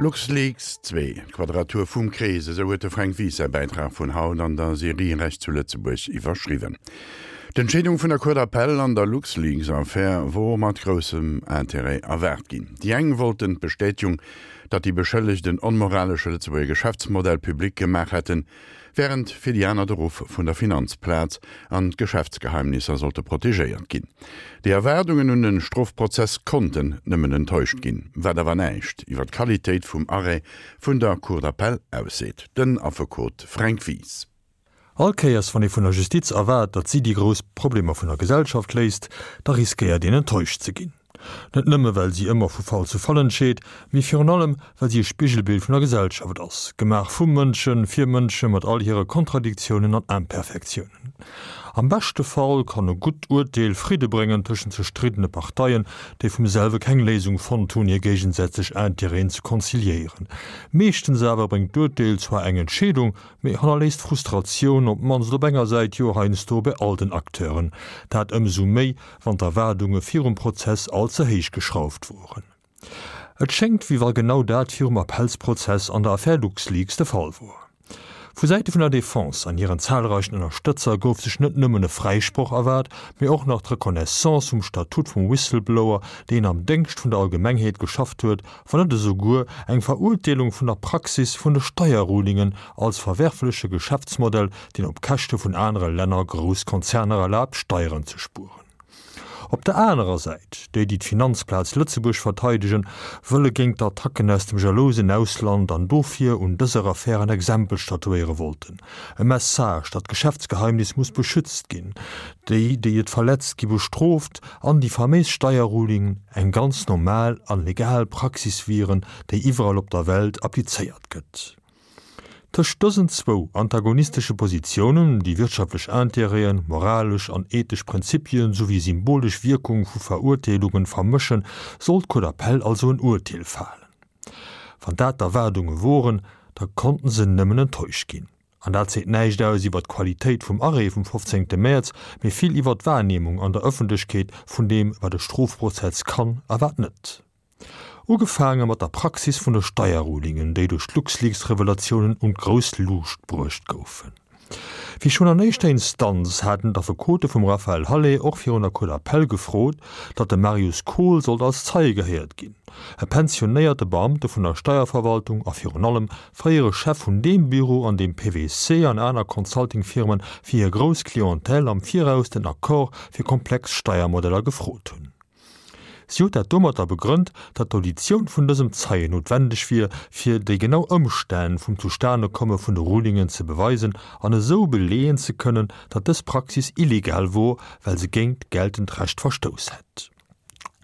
LuxLeaks 2, D'Quadratur vum Krees, esou huet de Fränk Wies säi Bäitrag vun haut an der Serie Recht zu Lëtzebuerg iwwerschriwwen. D'Entscheedung vun der Cour d'appel an der LuxLeaks-Affär wor mat groussem Interêt erwaart ginn. Déi eng wollten d'Bestätegung, datt déi Beschëllegt en onmoralesche Lëtzebuerger Geschäftsmodell public gemaach hätten, wärend fir déi aner de Ruff vun der Finanzplaz an d'Geschäftsgeheimnisser sollte protegéiert ginn. Déi Erwaardungen un de Strofprozess konnten nëmmen enttäuscht ginn, wat awer näischt iwwer d'Qualitéit vum Arrêt vun der Cour d'appel ausseet. Den Affekot Fränk Wies. All Kéiers wann ee vun der Justiz erwaart, datt si déi grouss Problemer vun der Gesellschaft léist, da riskéiert een enttäuscht ze ginn. Net nëmme well si ëmmer vu Fall zu Fall entscheet, mee virun allem well si e Spigelbild vun der Gesellschaft ass, gemaach vu Mënschen, fir Mënsche mat all hire Kontradiktiounen an Imperfektiounen. Am beschte Fall kann e gutt Urteel Fridde bréngen tëschent zerstriddene Parteien, déi vum selwe keng Léisung fonnt hunn, hir géigesätzlech Intérêten ze konziliéieren. Meeschtens awer bréngt d'Urteel zwar eng Entscheedung, mee hannerléisst Frustratioun, op d'mannst op enger Säit, jo heiansdo bei all den Acteuren. Dat ëmsou méi, wann d'Erwaardunge virum Prozess all ze héich geschrauft woren. Et schéngt, wéi wa genau dat virum Appellsprozess an der Affär LuxLeaks de Fall wor. Vu Säite vun der Defense an hiren zahlreichen Ënnerstëtzer gouf sech net nëmmen e Fräisproch erwaart, mee och nach d'Reconnaissance vum Statut vum Whistleblower, deen am Déngscht vun der Allgemengheet geschafft huet, wann net esouguer eng Verurteelung vun der Praxis vun de Steierrulingen als verwerfleche Geschäftsmodell, deen op Käschte vun anere Länner grouss Konzerner erlaabt, Steieren ze spueren. Op der anerer Säit, déi, déi d'Finanzplaz Lëtzebuerg verteidegen, wëlle géint d'Attacken aus dem jalousen Ausland an dofir un dëser Affär en Exempel statuéiere wollten. E Message, datt d'Geschäftsgeheimnis muss beschützt ginn, déi, déi et verletzt, gi bestrooft an déi faméis Steierrulingen eng ganz normal an legal Praxis wieren, déi iwwerall op der Welt applizéiert gëtt. Tëscht dësen zwou antagonistesche Positiounen, déi wirtschaftlech Intérêten, moralesch an ethesch Prinzipien souwéi symbolesch Wierkung vu Verurteelungen vermëschen, sollt d'Cour d'appel also en Urteel falen. Wann dat d'Erwaardunge woren, da konnten se nëmmen enttäuscht ginn. An dat seet näischt aus iwwer d'Qualitéit vum Arrêt vum 15. Mäerz, mee vill iwwer d'Wahrnehmung an der Ëffentlechkeet vun deem, wat e Strofprozess kann a wat net. Ugefaange mat der Praxis vun de Steierrulingen, déi duerch d'LuxLeaks-Revelatiounen un d'grouss Luucht bruecht goufen. Wéi schonn an éischter Instanz haten d'Affekote vum Raphaël Halet och virun der Cour d'appel gefrot, datt de Marius Kohl sollt als Zeie gehéiert ginn, e pensionéierte Beamte vun der Steierverwaltung a virun allem fréiere Chef vun deem Büro, an deem PwC an aner Consulting-Firmen fir hir grouss Clientèle am Viraus den Accord fir komplex Steiermodeller gefrot hunn. Si huet dat domatter begrënnt, datt d'Auditioun vun dësem Zeien noutwendeg wier, fir déi genau Ëmstänn vum Zustanekomme vun de Rulingen ze beweisen an esou beleeën ze kënnen, datt dës Praxis illegal wor, well se géint geltend Recht verstouss hätt.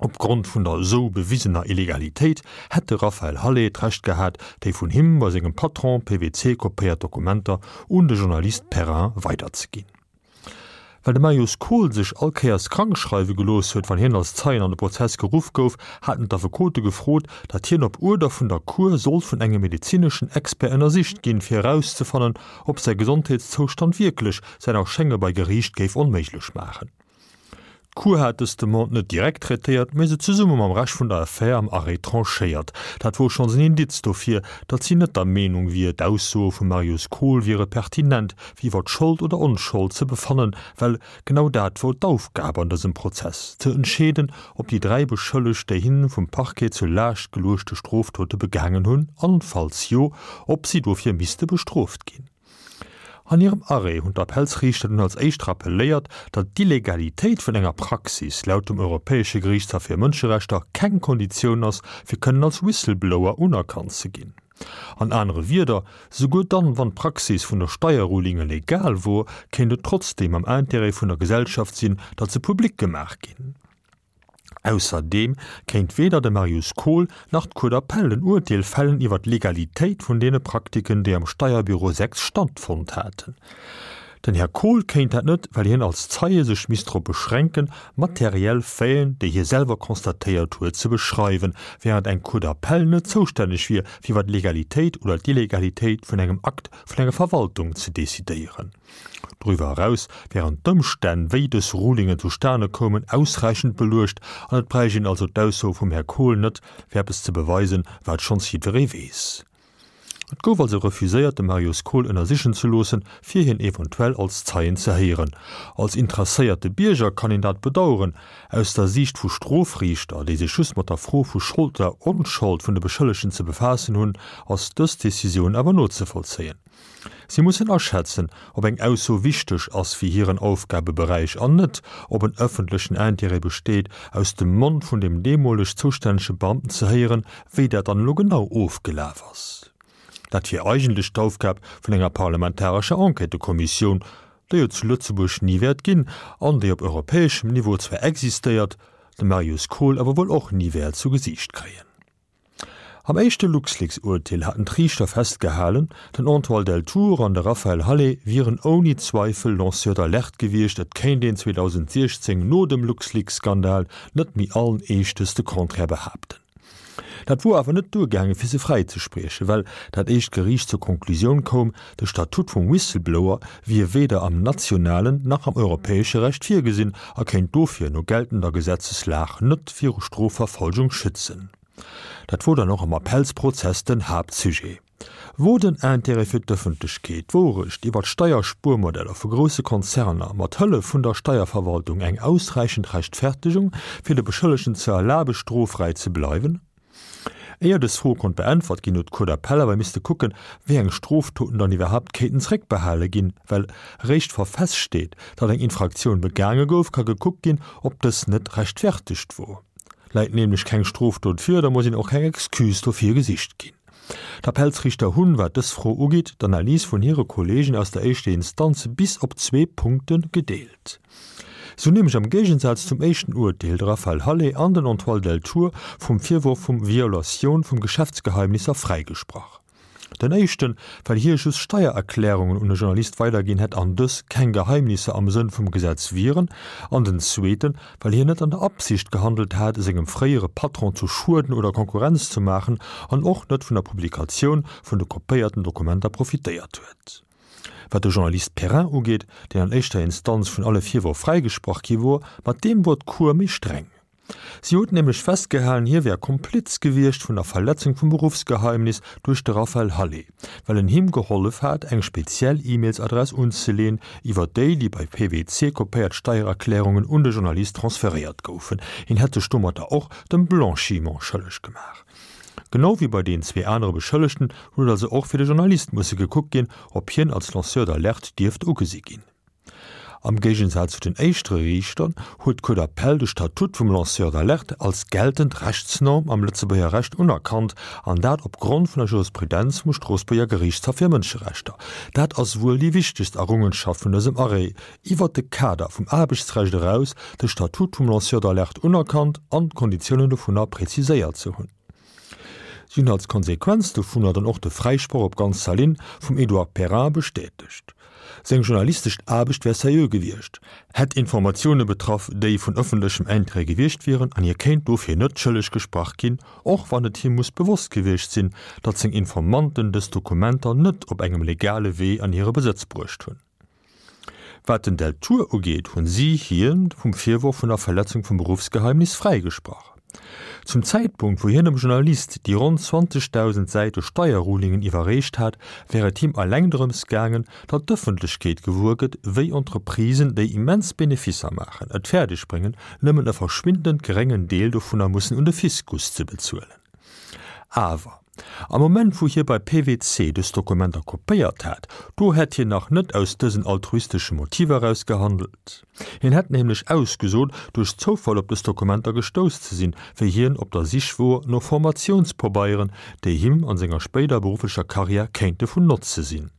Opgrond vun der esou bewisener Illegalitéit hätt de Raphaël Halet d'Recht gehat, déi vun him bei sengem Patron PwC kopéiert Dokumenter un de Journalist Perrin weiderzeginn. Well de Marius Kohl sech all Kéiers krank schreiwe gelooss huet, wann hien als Zeien an de Prozess geruff gouf, haten d'Affekote gefrot, datt hien op Uerder vun der Cour sollt vun engem medezineschen Expert ënnersicht ginn, fir erauszefannen, ob säi Gesondheetszoustand wierklech säin Erschénge bei Geriicht géif onméiglech maachen. D'Cour hat dës Demande net direkt traitéiert, mee se zesumme mam Rescht vun der Affär am Arrêt tranchéiert. Dat wor schonns en Indiz dofir, datt si net der Meenung wier, d'Aussoe vum Marius Kohl wiere pertinent, fir iwwer d'Schold oder Onschold ze befannen, well genau dat wor d'Aufgab an dësem Prozess, ze entscheeden, ob déi 3 Beschëllegt déi hinne vum Parquet zur Laascht geluechte Strofdote begaangen hunn an, falls jo, ob si dofir misste bestrooft ginn. An hirem Arrêt hunn d'Appellsriichter dunn als éischt rappeléiert, datt d'Illegalitéit vun enger Praxis laut dem Europäesche Geriichtshaff fir Mënscherechter keng Konditioun ass, fir kënnen als Whistleblower unerkannt ze ginn. An anere Wierder, Souguer dann, wann d'Praxis vun der Steierrulinge legal wor, kéint et trotzdeem am Intérêt vun der Gesellschaft sinn, datt se public gemaach ginn. Ausserdeem kéint weder de Marius Kohl nach d'Cour d'appel en Urteel fällen iwwer d'Legalitéit vun deene Praktiken, déi am Steierbüro 6 stattfonnt haten. Den Här Kohl kéint dat net, well hien als Zeie sech misst drop beschränken, materiell Faiten, déi hie selwer constatéiert huet, ze beschreiwen, während eng Cour d'appel net zoustänneg wier, fir iwwer d'Legalitéit oder d'Illegalitéit vun engem Akt vun enger Verwaltung ze decidéieren. Doriwwer eraus wären d'Ëmstänn, wéi dës Rulingen zustane koumen, ausräichend beluecht an et bräicht een also d'Ausso vum Här Kohl net, fir eppes ze beweisen, wat schonns jiddweree weess. Et gouf also refuséiert, de Marius Kohl ënnersichen ze loossen, fir hien eventuell als Zeien ze héieren. Als interesséierte Bierger kann een dat bedaueren. Aus der Siicht vu Strofriichter, déi sech just mat der Fro vu Schold oder Onschold vun de Beschëllegten ze befaassen hunn, ass dës Decisioun awer nozevollzéien. Si mussen aschätzen, ob eng Ausso wichteg ass fir hiren Aufgabeberäich an net, ob en ëffentlechen Intérêt besteet, aus dem Mond vun dem deemoleg zoustännege Beamten ze héieren, wéi dat dann elo genau ofgelaf ass. Dat wier eigentlech d'Aufgab vun enger parlamentarescher Enquêtëkommissioun, déi et zu Lëtzebuerg ni wäert ginn an déi op europäeschem Niveau zwar existéiert, de Marius Kohl awer wuel och ni wäert zu Gesiicht kréien. Am éischte LuxLeaks-Urteel haten d'Riichter festgehalen, den Antoine Deltour an de Raphaël Halet wieren ouni Zweifel Lanceurs d'alerte gewiescht, et kéint een 2016 no dem LuxLeaks-Skandal net méi allen Eeschtes de Contraire behaapten. Dat wor awer net duergaange fir se fräizespriechen, well dat éischt Geriicht zur Konklusioun koum, de Statut vum Whistleblower wier weder am nationalen nach am europäesche Recht virgesinn a kéint dofir no geltender Gesetzeslag net viru Strofverfolgung schützen. Dat wor dann och am Appellsprozess den Haaptsujet. Wor den Intérêt fir d'Ëffentlechkeet, d'Wourecht iwwer d'Steierspuermodeller vu grousse Konzerner mat Hëllef vun der Steierverwaltung eng ausräichend Rechtfertegung, fir de Beschëllegten ze erlabe stroffräi ze bleiwen? Éier dës Fro konnt beäntwert ginn, huet d'Cour d'appel awer misste kucken, wéi eng Stroftoten dann iwwerhaapt kéinten zréckbehale ginn, well eréischt wa feststeet, datt eng Infraktioun begaange gouf, ka gekuckt ginn, ob dës net rechtfertegt wor. Läit nämlech keng Strofdot vir, da muss een och keng Excuse dofir gesicht ginn. D'Appellsriichter hunn, wat dës Fro ugeet, d'Analys vun hire Kolleegen aus der éischter Instanz bis op zwee Punkte gedeelt. Si hunn nämlech am Géigensaz zum éischten Urteel de Raphaël Halet an den Antoine Deltour vum Virworf vum Violatioun vum Geschäftsgeheimnisser fräigesprach. Den éischten, well hie just Steiererklärungen un e Journalist weiderginn hätt an dës keng Geheimnisser am Sënn vum Gesetz wieren, an den zweeten, well hien net an der Absicht gehandelt hat, sengem fréiere Patron zu schueden oder Konkurrenz ze maachen an och net vun der Publikatioun vun de kopéierten Dokumenter profitéiert huet. Wat de Journalist Perrin ugeet, deen an éischter Instanz vun alle Virwërf fräigesprach gi wor, mat deem wor d'Cour méi streng. Si huet nämlech festgehalen, hie wär Kompliz gewiescht vun der Verletzung vum Beruffsgeheimnis duerch de Raphaël Halet, well en him gehollef hat, eng speziell E-Mails-Adress unzeleen, iwwer déi déi bei PwC kopéiert Steiererklärungen un de Journalist transferéiert goufen. Hien hätt sech domatter och dem Blanchiment schëlleg gemaach. Genau wéi bei den zwee anere Beschëllegten huet also och fir de Journalist musse gekuckt ginn, ob hien als Lanceur d'alerte dierft ugesi ginn. Am Géigensaz zu den éischtere Riichter huet d'Cour d'appel de Statut vum Lanceur d'alerte als geltend Rechtsnorm am Lëtzebuerger Recht unerkannt, an dat op Grond vun der Jurisprudenz vum Stroossbuerger Geriichtshaff fir Mënscherechter. Dat ass wuel déi wichtegst Errungenschaft vun dësem Arrêt, iwwert de Kader vum Aarbechtsrecht eraus de Statut vum Lanceur d'alerte unerkannt an d'Konditiounen dovunner preziséiert ze hunn. Si hunn als Konsequenz dovunner dann och de Fräisproch op ganzer Linn vum Edouard Perrin bestätegt. Seng journalistesch Aarbecht wär seriö gewiescht, hätt Informatioune betraff, déi vun ëffentlechem Interêt gewiescht wieren an hie kéint dofir net schëlleg gesprach ginn, och wann et him muss bewosst gewiescht sinn, datt seng Informanten dës Dokumenter net op engem legale Wee an hire Besëtz bruecht hunn. Wat den Deltour ugeet, hunn si hien vum Virworf vun der Verletzung vum Beruffsgeheimnis fräigesprach. Zum Zäitpunkt, wou hien dem Journalist déi ronn 20.000 Säite Steierrulingen iwwerreecht hat, wär et him eleng drëms gaangen, datt d'Ëffentlechkeet gewuer gëtt, wéi Entreprisen, déi immens Beneficer maachen, et fäerdeg bréngen, nëmmen e verschwindend geréngen Deel dovunner mussen un de Fiskus ze bezuelen. Awer am Moment wou hie bei PwC dës Dokumenter kopéiert hat, do hätt hien nach net aus dësen altruistesche Motiver eraus gehandelt. Hien hätt nämlech ausgesot, duerch Zoufall op dës Dokumenter gestouss ze sinn, wéi hien op der Sich wor no Formatiounspobeieren, déi him an senger spéider berufflecher Karriär kéinte vun Notze sinn.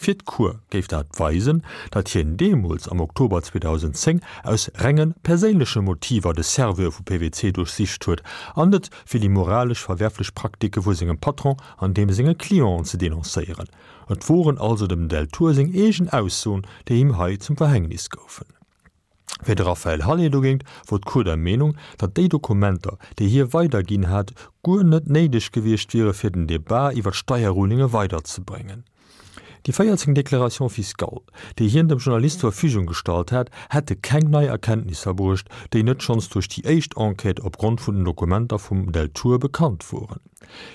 Fir d'Cour géif dat weisen, datt hien deemools am Oktober 2010 aus renge perséinleche Motiver de Serveur vu PwC duerchsicht huet an net fir déi moralesch verwerflech Praktike vu sengem Patron an deem senge Clienten ze denoncéieren. Et woren also dem Deltour seng eegen Aussoen, déi him hei zum Verhängnis goufen. Fir de Raphaël Halet dogéint wor d'Cour der Meenung, datt déi Dokumenter, déi hie weiderginn hat, guer net néideg gewiescht wiere fir den Debat iwwer d'Steierrulinge weiderzebréngen. Déi 14 Déclarations fiscales, déi hien dem Journalist zur Verfügung gestallt hat, hätte keng nei Erkenntnisser bruecht, déi net schonns duerch déi éischt Enquête opgrond vun den Dokumenter vum Deltour bekannt woren.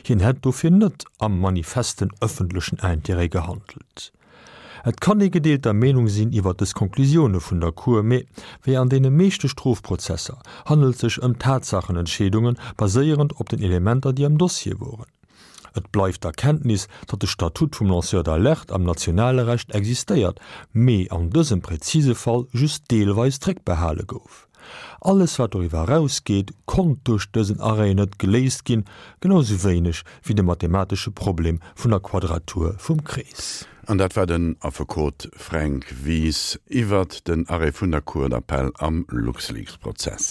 Hien hätt dofir net am manifesten ëffentlechen Intérêt gehandelt. Et kann ee gedeelter Meenung sinn iwwer dës Konklusioune vun der Cour, mee wéi an deene meeschte Strofprozesser handelt sech ëm Tatsachenentscheedunge baséierend op den Elementer, déi am Dossier woren. Et bleift d'Erkenntnis, datt de Statut vum Lanceur d'alerte am nationale Recht existéiert, mee an dësem präzise Fall just deelweis zréckbehale gouf. Alles wat doriwwer erausgeet, konnt duerch dësen Arrêt net geléist ginn, genau sou wéineg wéi de mathematesche Problem vun der Quadratur vum Krees. An dat war den Affekot Fränk Wies iwwert den Arrêt vun der Cour d'appel am LuxLeaks-Prozess.